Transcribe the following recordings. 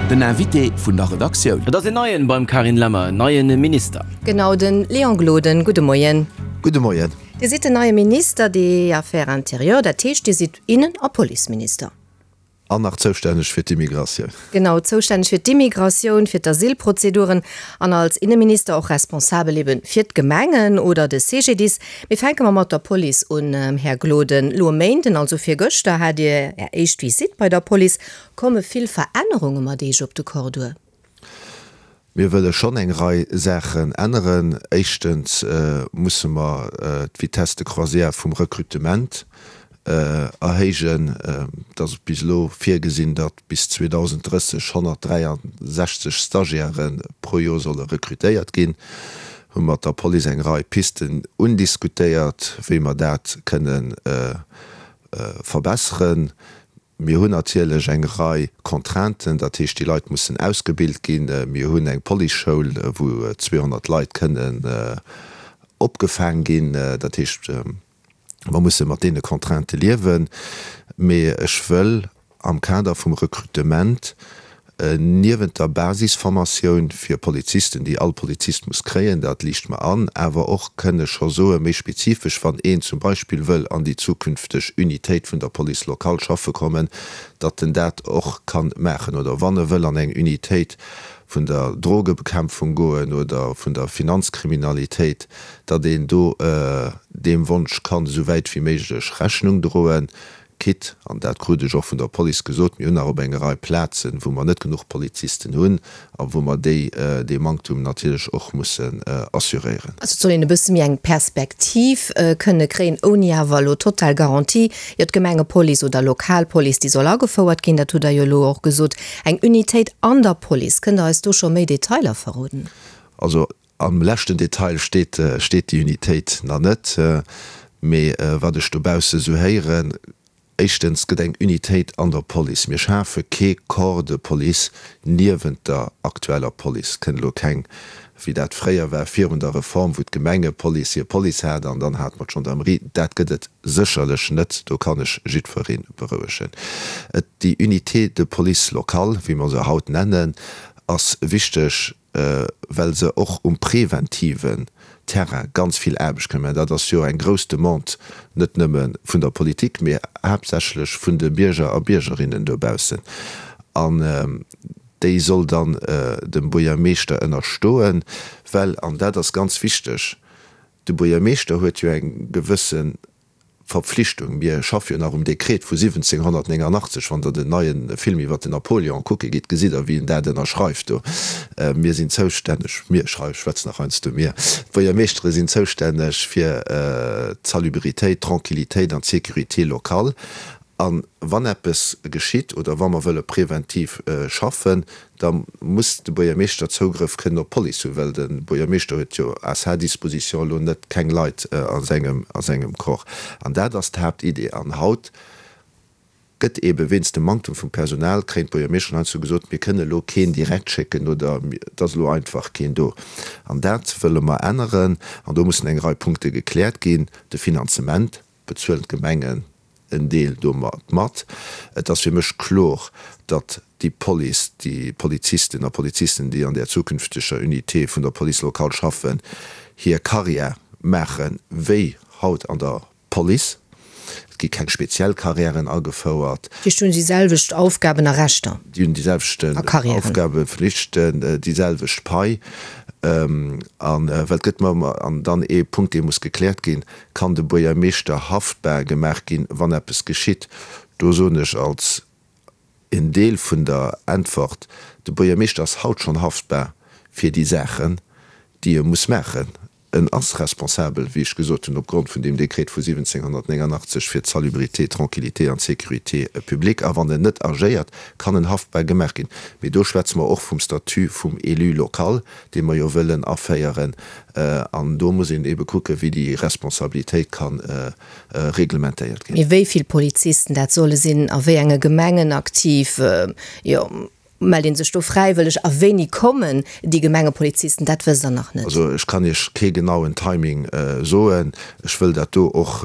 Den Invité vun der Redaktioun. Et ass een Neien beim Carine Lemmer, en neien Minister. Genau, den Léon Gloden. Gudde Moien. Gudde Moien. Dir sidd den neie Minister des Affaires intérieures, dat heescht, Dir sidd Innen a Policeminister. An nach zoustänneg fir d'Immigratioun. Genau, zoustänneg fir d'Immigratioun, fir d'Asylprozeduren an als Inneminister och responsabel ebe fir d'Gemengen oder de CGDIS. Mee fänke mer mat der Police un, Här Gloden. Elo e Méinden, also virgëschter, hat Dir Är éischt Visitt bei der Police. Komme vill Verännerunge mat Eech op de Corps duer? Mir wëlle schonn eng Rei Saachen änneren. Éischtens musse mer d'Vitesse de croisière vum Recrutement erhéijen. Et ass bis elo virgesinn, datt bis 2030 163 Stagiairë pro Joer solle recrutéiert ginn. Hu mat der Police eng Rei Pisten undiskutéiert, wéi mer dat kënne verbesseren. Mir hunn natierlech eng Rei Contrainten, dat heescht, déi Leit mussen ausgebilt ginn. Mir hunn eng Policeschoul, wou 200 Leit kënnen opgefaang ginn. Dat heescht, mer musse mat deene Contraintë liewen. Mee ech wëll am Kader vum Recrutement niewent der Basisformatioun fir Polizisten, déi all Polizist muss kréien, dat liicht mer an, awer och kënne scho soen, méi spezifesch, wann een zum Beispill wëll an déi zukünfteg Unitéit vun der Police locale schaffe kommen, datt en dat och ka maachen, oder wann e wëll an eng Unitéit vun der Drogebekämpfung goen oder vun der Finanzkriminalitéit, datt een do deem Wonsch kann esou wäit wéi méiglech Rechnung droen. Quitte, an dat krut ech och vun der Police gesot, mir hunn nach op enger Rei Plazen, wou mer net genuch Polizisten hunn a wou mer déi, dee Manktum natierlech och mussen assuréieren. Also et soll een e bësse méi eng Perspektiv kënne kréien, ouni awer elo total Garantie. Jo, d'Gemengepolice oder Lokalpolice, déi soll agefouert ginn, dat hutt Der jo elo och gesot. Eng Unitéit an der Police, kënnt Der eis do scho méi Detailer verroden? Also Am leschten Detail steet steet déi Unitéit nach net, mee wat ech dobausse sou héieren, éischtens gëtt eng Unitéit an der Police, mir schafe kee Corps de police niewent der aktueller Police, kënnt elo keng, wéi dat fréier war virun der Reform, wou d'Gemengepolice hir Police hat an dann hat mer d'Gendarmerie, dat gëtt et sécherlech net, do kann ech jiddweree berouegen. Et déi Unité de police locale, wéi mer se haut nennen, ass wichteg, well se och um preventiven Terrain ganz vill Aarbecht kënnen maachen. Dat ass jo eng grouss Demande, net nëmme vun der Politik, mee haaptsächlech vun de Bierger a Biergerinnen dobaussen. An déi soll dann dem Buergermeeschter ënnerstoen, well, an dat ass ganz wichteg, de Buergermeeschter huet jo eng gewësse Verpflichtung. Mir schaffe jo nach um Dekret vu 1789. Wann Der den neie Film iwwer den Napoléon kucke gitt, gesitt Der, wéi en dat ënnerschreift do. Mir sinn zoustänneg, mir, ech schwätzen nach heiansdo mir, d'Buergermeeschtere sinn zoustänneg fir d'Salubritéit, d'Tranquillitéit an d'Sécurité locale. A wann eppes geschitt oder wa mer wëlle preventiv schaffen, da muss de Buergermeeschter Zougrëff kënnen op d'Police hunn, well de Buergermeeschter huet jo à sa disposition elo net keng Leit a sengem, a sengem Corps. An dat ass d'Haaptidee. An haut gëtt eebe wéinst dem Manktum vum Personal, kréien d'Buergermeeschteren heiansdo gesot, mir kënne elo keen direkt schécken oder et ass elo einfach keen do. An dat wëlle mer änneren. An do mussen eng Rei Punkte gekläert ginn, de Finanzement, bezuelen d'Gemengen en Deel domat mat. Et ass fir mech klor, datt déi Police, déi Polizisten a Polizisten, déi an där zukünfteger Unité vun der Police locale schaffen, hir Carrière maache wéi haut an der Police. Et gi keng speziell Carrièren agefouert. Dat heescht, hunn déi selwecht Aufgaben a Rechter? Déi hunn déi selwechten Aufgaben, Flichten, déi selwecht Pai. A well et gëtt mer ëmmer, an dann ee Punkt, dee muss gekläert ginn, Kann de Buergermeeschter haftbar gemaach ginn, wann eppes geschitt? Do soen ech als en Deel vun der Äntwert, De Buergermeeschter ass haut schonn haftbar fir déi Saachen, déi e muss maachen. En ass responsabel, wéi ech gesot hunn, opgrond vun deem Dekret vu 1789 fir d'Salubrité, d'Tranquillité an d'Sécurité publique. A wann en net agéiert, kann en haftbar gemaach ginn. Mee do schwätze mer och vum Statut vum Élu local, dee mer jo wëllen aféieren. An do muss een eebe kucken, wéi déi Responsabilitéit ka reglementéiert ginn. Mee wéi vill Polizisten dat solle sinn, a wéi enge Gemengen aktiv, jo. Mellt ee sech do fräiwëlleg a wéini kommen déi Gemengepolizisten? Dat wësst Der nach net. Also ech kann Iech kee genauen Timing soen. Ech wëll dat do och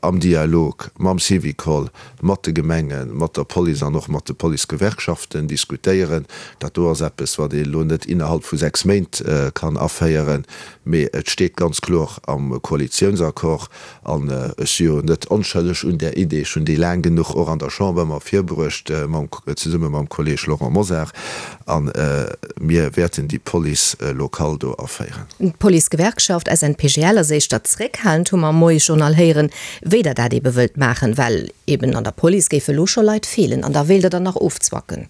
am Dialog mam Syvicol, mat de Gemengen, mat der Police an och mat de Policegewerkschaften diskutéieren. Dat do ass eppes, wat ee elo net innerhalb vu 6 Méint kann aféieren, mee et steet ganz kloer am Koalitiounsaccord. An ech si jo net onschëlleg un där Idee, ech hunn déi laang genuch och an der Chamber ëmmer virbruecht, mam, zesumme mam Kolleg Laurent Mosar. A mir wäerten déi Police locale do aféieren. D'Policegewerkschaft SNPGL ass éischter zréckhalend, hu mer am Moiesjournal héieren, wéi der dat eebe wëllt maachen, well eeben an der Police géife elo scho Leit feelen an da wéilt der der nach ofzwacken.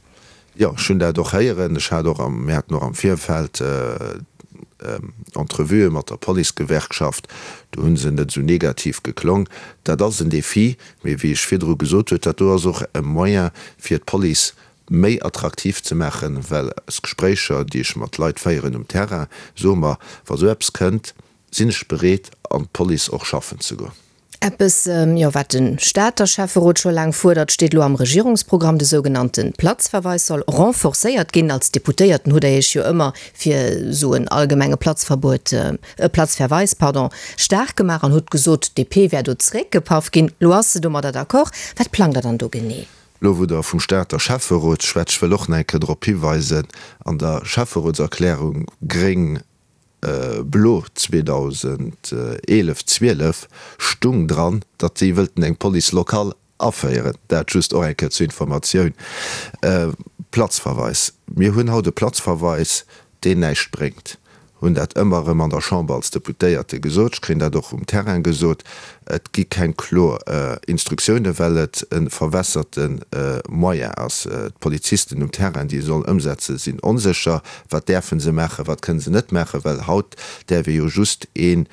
Jo, ech hunn dat och héieren. Ech hat och am, mir haten och am Virfeld Entrevuë mat der Policegewerkschaft, do hu se net esou negativ geklong. Dat ass en Défi, mee wéi ech virdru gesot huet, dat do ass och e Moyen fir d'Police méi attraktiv ze maachen, well aus Gespréicher, déi ech mat Leit féieren um Terrain, soe mer, wa sou eppes kënnt, sinn ech bereet an d'Police och schaffen ze goen. Eppes, jo, wat de Stater Schäfferot scho laang fuerdert, steet elo am Regierungsprogramm, De sougenannte Platzverweis soll renforcéiert ginn. Als Deputéierten hutt Der Iech jo ëmmer fir esou en allgemenge Platzverbuet, Platzverweis, pardon, staark gemaach an hutt gesot, d'DP wär do zeréckgepaff ginn. Elo ass se domadder d'accord. Wat plangt Der dann do genee? Elo wou Der vum Stater Schäfferot schwätzt, ech wëll och nach eng Kéier drop hiweisen, an der Schäfferotserklärung gréng, Blo 2011, 12 stung dran, datt si wëllten eng Police locale aféieren. Dat just och eng Kéier zur Informatioun. Platzverweis, Mir hunn haut e Platzverweis, deen näischt bréngt. Hunn dat ëmmer erëm an der Chamber als Deputéierte gesot. Ech kréien dat och um Terrain gesot. Et gi keng kloer Instruktiounen, well et e verwässerte Moyen ass. D'Polizisten um Terrain, déi e sollen ëmsetzen, sinn onsécher. Wat däerfe se maachen, wat kënne se net maachen? Well haut däerf ee jo just een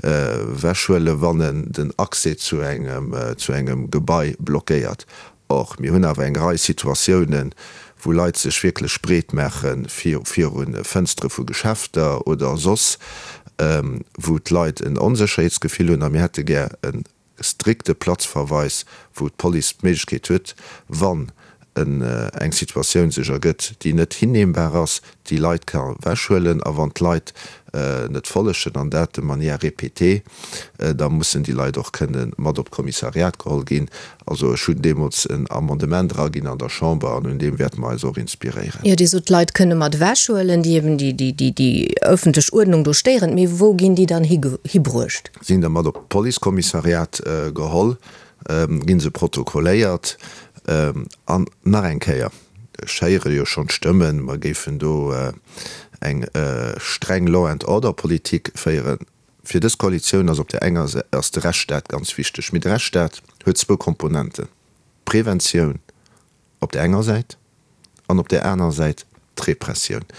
ewechhuelen, wann en den Accès zu engem, zu engem Gebai blockéiert. Or, mir hunn awer eng Rei Situatiounen, wou Leit sech wierklech breet maache viru Fënstere vu Geschäfter oder soss, wou d'Leit en Onsécherheetsgefill hunn. A mir hätte gär e strikte Platzverweis, wou d'Police d'Méiglechkeet huet, wann eng Situatioun sech ergëtt, déi net hinnehmbar ass, déi Leit ka wechhuelen. A wann d'Leit net follegen, an dat de manière répétée, da mussen déi Leit och kënne mat op d'Kommissariat geholl ginn. Also ech hunn deemools en Amendement eraginn an der Chamber an un deem wäerte mer eis och inspiréieren. Jo, Dir sot, d'Leit kënne mat ewechhuelen, déi eben déi ëffentlech Uerdnung do stéieren. Mee wou ginn déi dann hibruecht? Si ginn da mat op d'Policekommissariat geholl, gi se protokolléiert. An nach eng Kéier, ech héiere jo schonn d'Stëmmen, mer géifen do eng streng Law-and-order-Politik féieren. Fir dës Koalitioun ass op där enger Säit ass de Rechtsstaat ganz wichteg. Mee de Rechtsstaat huet zwou Komponenten, d'Preventioun op där enger Säit an op där anerer Säit d'Repressioun.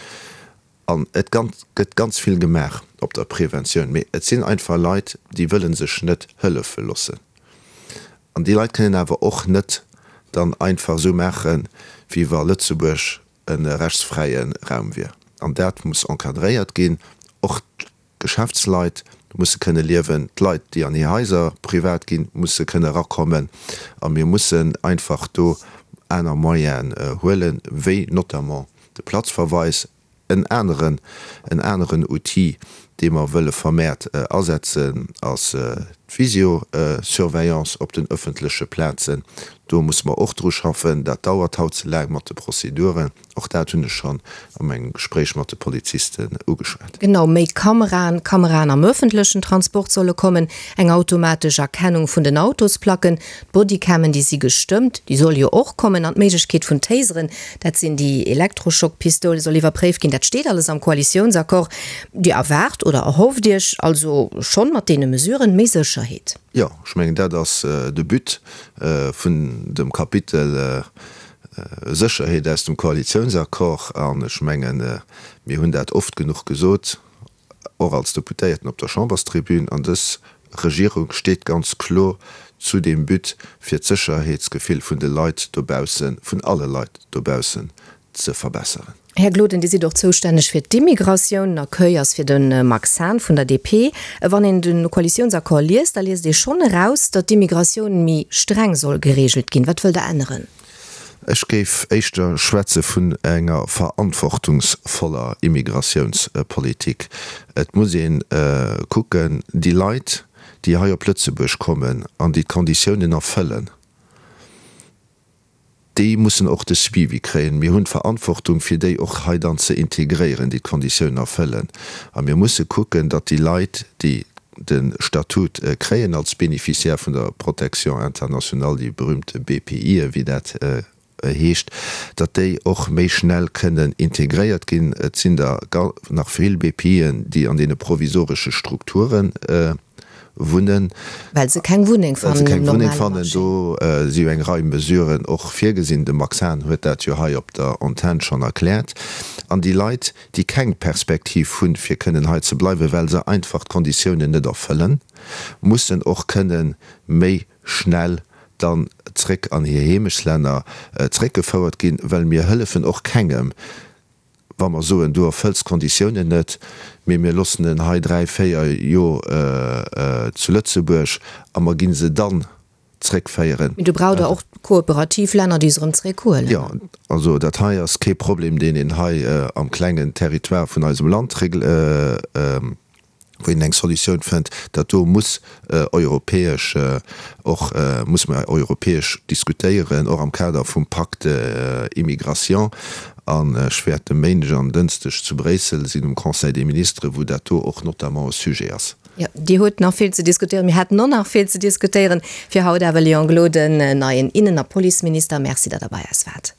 An et gëtt ganz vill gemaach op der Preventioun, mee et sinn einfach Leit, déi wëlle sech net hëllefe loossen. An déi Leit kënnen awer och net dann einfach esou maachen, wéi wa Lëtzebuerg e rechtsfräie Raum wier. An dat muss encadréiert ginn. Och D'Geschäftsleit musse kënne liewen, d'Leit, déi an hir Haiser privat ginn, musse kënne erakommen. A mir mussen einfach do aner Moyenen huelen, wéi notamment de Platzverweis, en aneren, en aneren Outil, dee mer wëlle vermehrt asetzen, ass d'Visiosurveillance op den öffentleche Plazen. Do musse mer och dru schaffen. Dat dauert haut ze laang mat de Prozeduren. Och dat hunn ech schonn a mengem Gespréich mat de Polizisten ugeschwat. Genau, méi Kameraen, Kameraen am ëffentlechen Transport solle kommen, eng automatesch Erkennung vun den Autosplacken, d'Bodycammen, déi si gestëmmt, déi solle jo och kommen, an d'Méiglechkeet vun Taseren, dat sinn déi Elektroschockpistoule, soll iwwerpréift ginn. Dat steet alles am Koalitiounsaccord. Dir erwaart oder erhofft Iech also schonn mat deene Mesuren méi Sécherheet? Jo, ech mengen, dat ass de But vun dem Kapitel Sécherheet aus dem Koalitiounsaccord, an ech mengen, mir hunn dat oft genuch gesot, och als Deputéierten op der Chamberstribün, an dës Regierung steet ganz kloer zu deem But, fir d'Sécherheetsgefill vun de Leit dobaussen, vun alle Leit dobaussen ze verbesseren. Här Gloden, Dir sidd och zoustänneg fir d'Immigratioun. Den Accueil ass fir de Max Hahn vun der DP. Wann een de Koalitiounsaccord liest, da liest ee schonn eraus, datt d'Immigratioun méi streng soll gereegelt ginn. Wat wëllt Der änneren? Ech géif éischter schwätze vun enger verantwortungsvoller Immigratiounspolitik. Et muss ee kucken, déi Leit, déi hei op Lëtzebuerg kommen an déi d'Konditiounen erfëllen, déi mussen och de Suivi kréien. Mir hunn d'Verantwortung, fir déi och hei dann ze integréieren, déi d'Konditiounen erfëllen. A mir musse kucken, datt déi Leit, déi de Statut kréien als Bénéficiaire vun der Protection internationale, déi berühmte BPIe wéi dat heescht, datt déi och méi schnell kënnen integréiert ginn. Et sinn der nach vill BPIen, déi an deene provisoresche Strukture wunnen. Well se keng Wunneng fannen um normale Marché. Do si jo eng Rei Mesuren och virgesinn. De Max Hahn huet dat jo hei op der Antenn schonn erkläert. An déi Leit, déi keng Perspektiv hunn, fir kënnen hei ze bleiwen, well se einfach d'Konditiounen net erfëllen, mussen och kënnen méi schnell dann zréck an hir Heemechtslänner zréckgefouert ginn, well mir hëllefen och kengem, wa mer soen, du erfëlls d'Konditiounen net, mee mir loossen en hei 3, 4 Jor zu Lëtzebuerg a mer gi se dann zréckféieren. Mee do braucht Der och kooperativ Länner, déi se erëm zréckhuelen. Jo, also dat hei ass kee Problem, deen een hei am klengen Territoire vun eisem Land wou een eng Solutioun fënnt. Dat do muss europäesch och, muss mer europäesch diskutéieren, och am Kader vum Pacte Immigration. An ech wäert e Méindeg an Dënschdeg zu Bréissel sinn um Conseil des ministres, wou dat do och notamment e Sujet ass. Jo, Dir hutt nach vill ze diskutéieren. Mir hätten och nach vill ze diskutéieren. Fir haut awer, Léon Gloden, neien Innen a Policeminister, Merci, datt Der bei eis waart.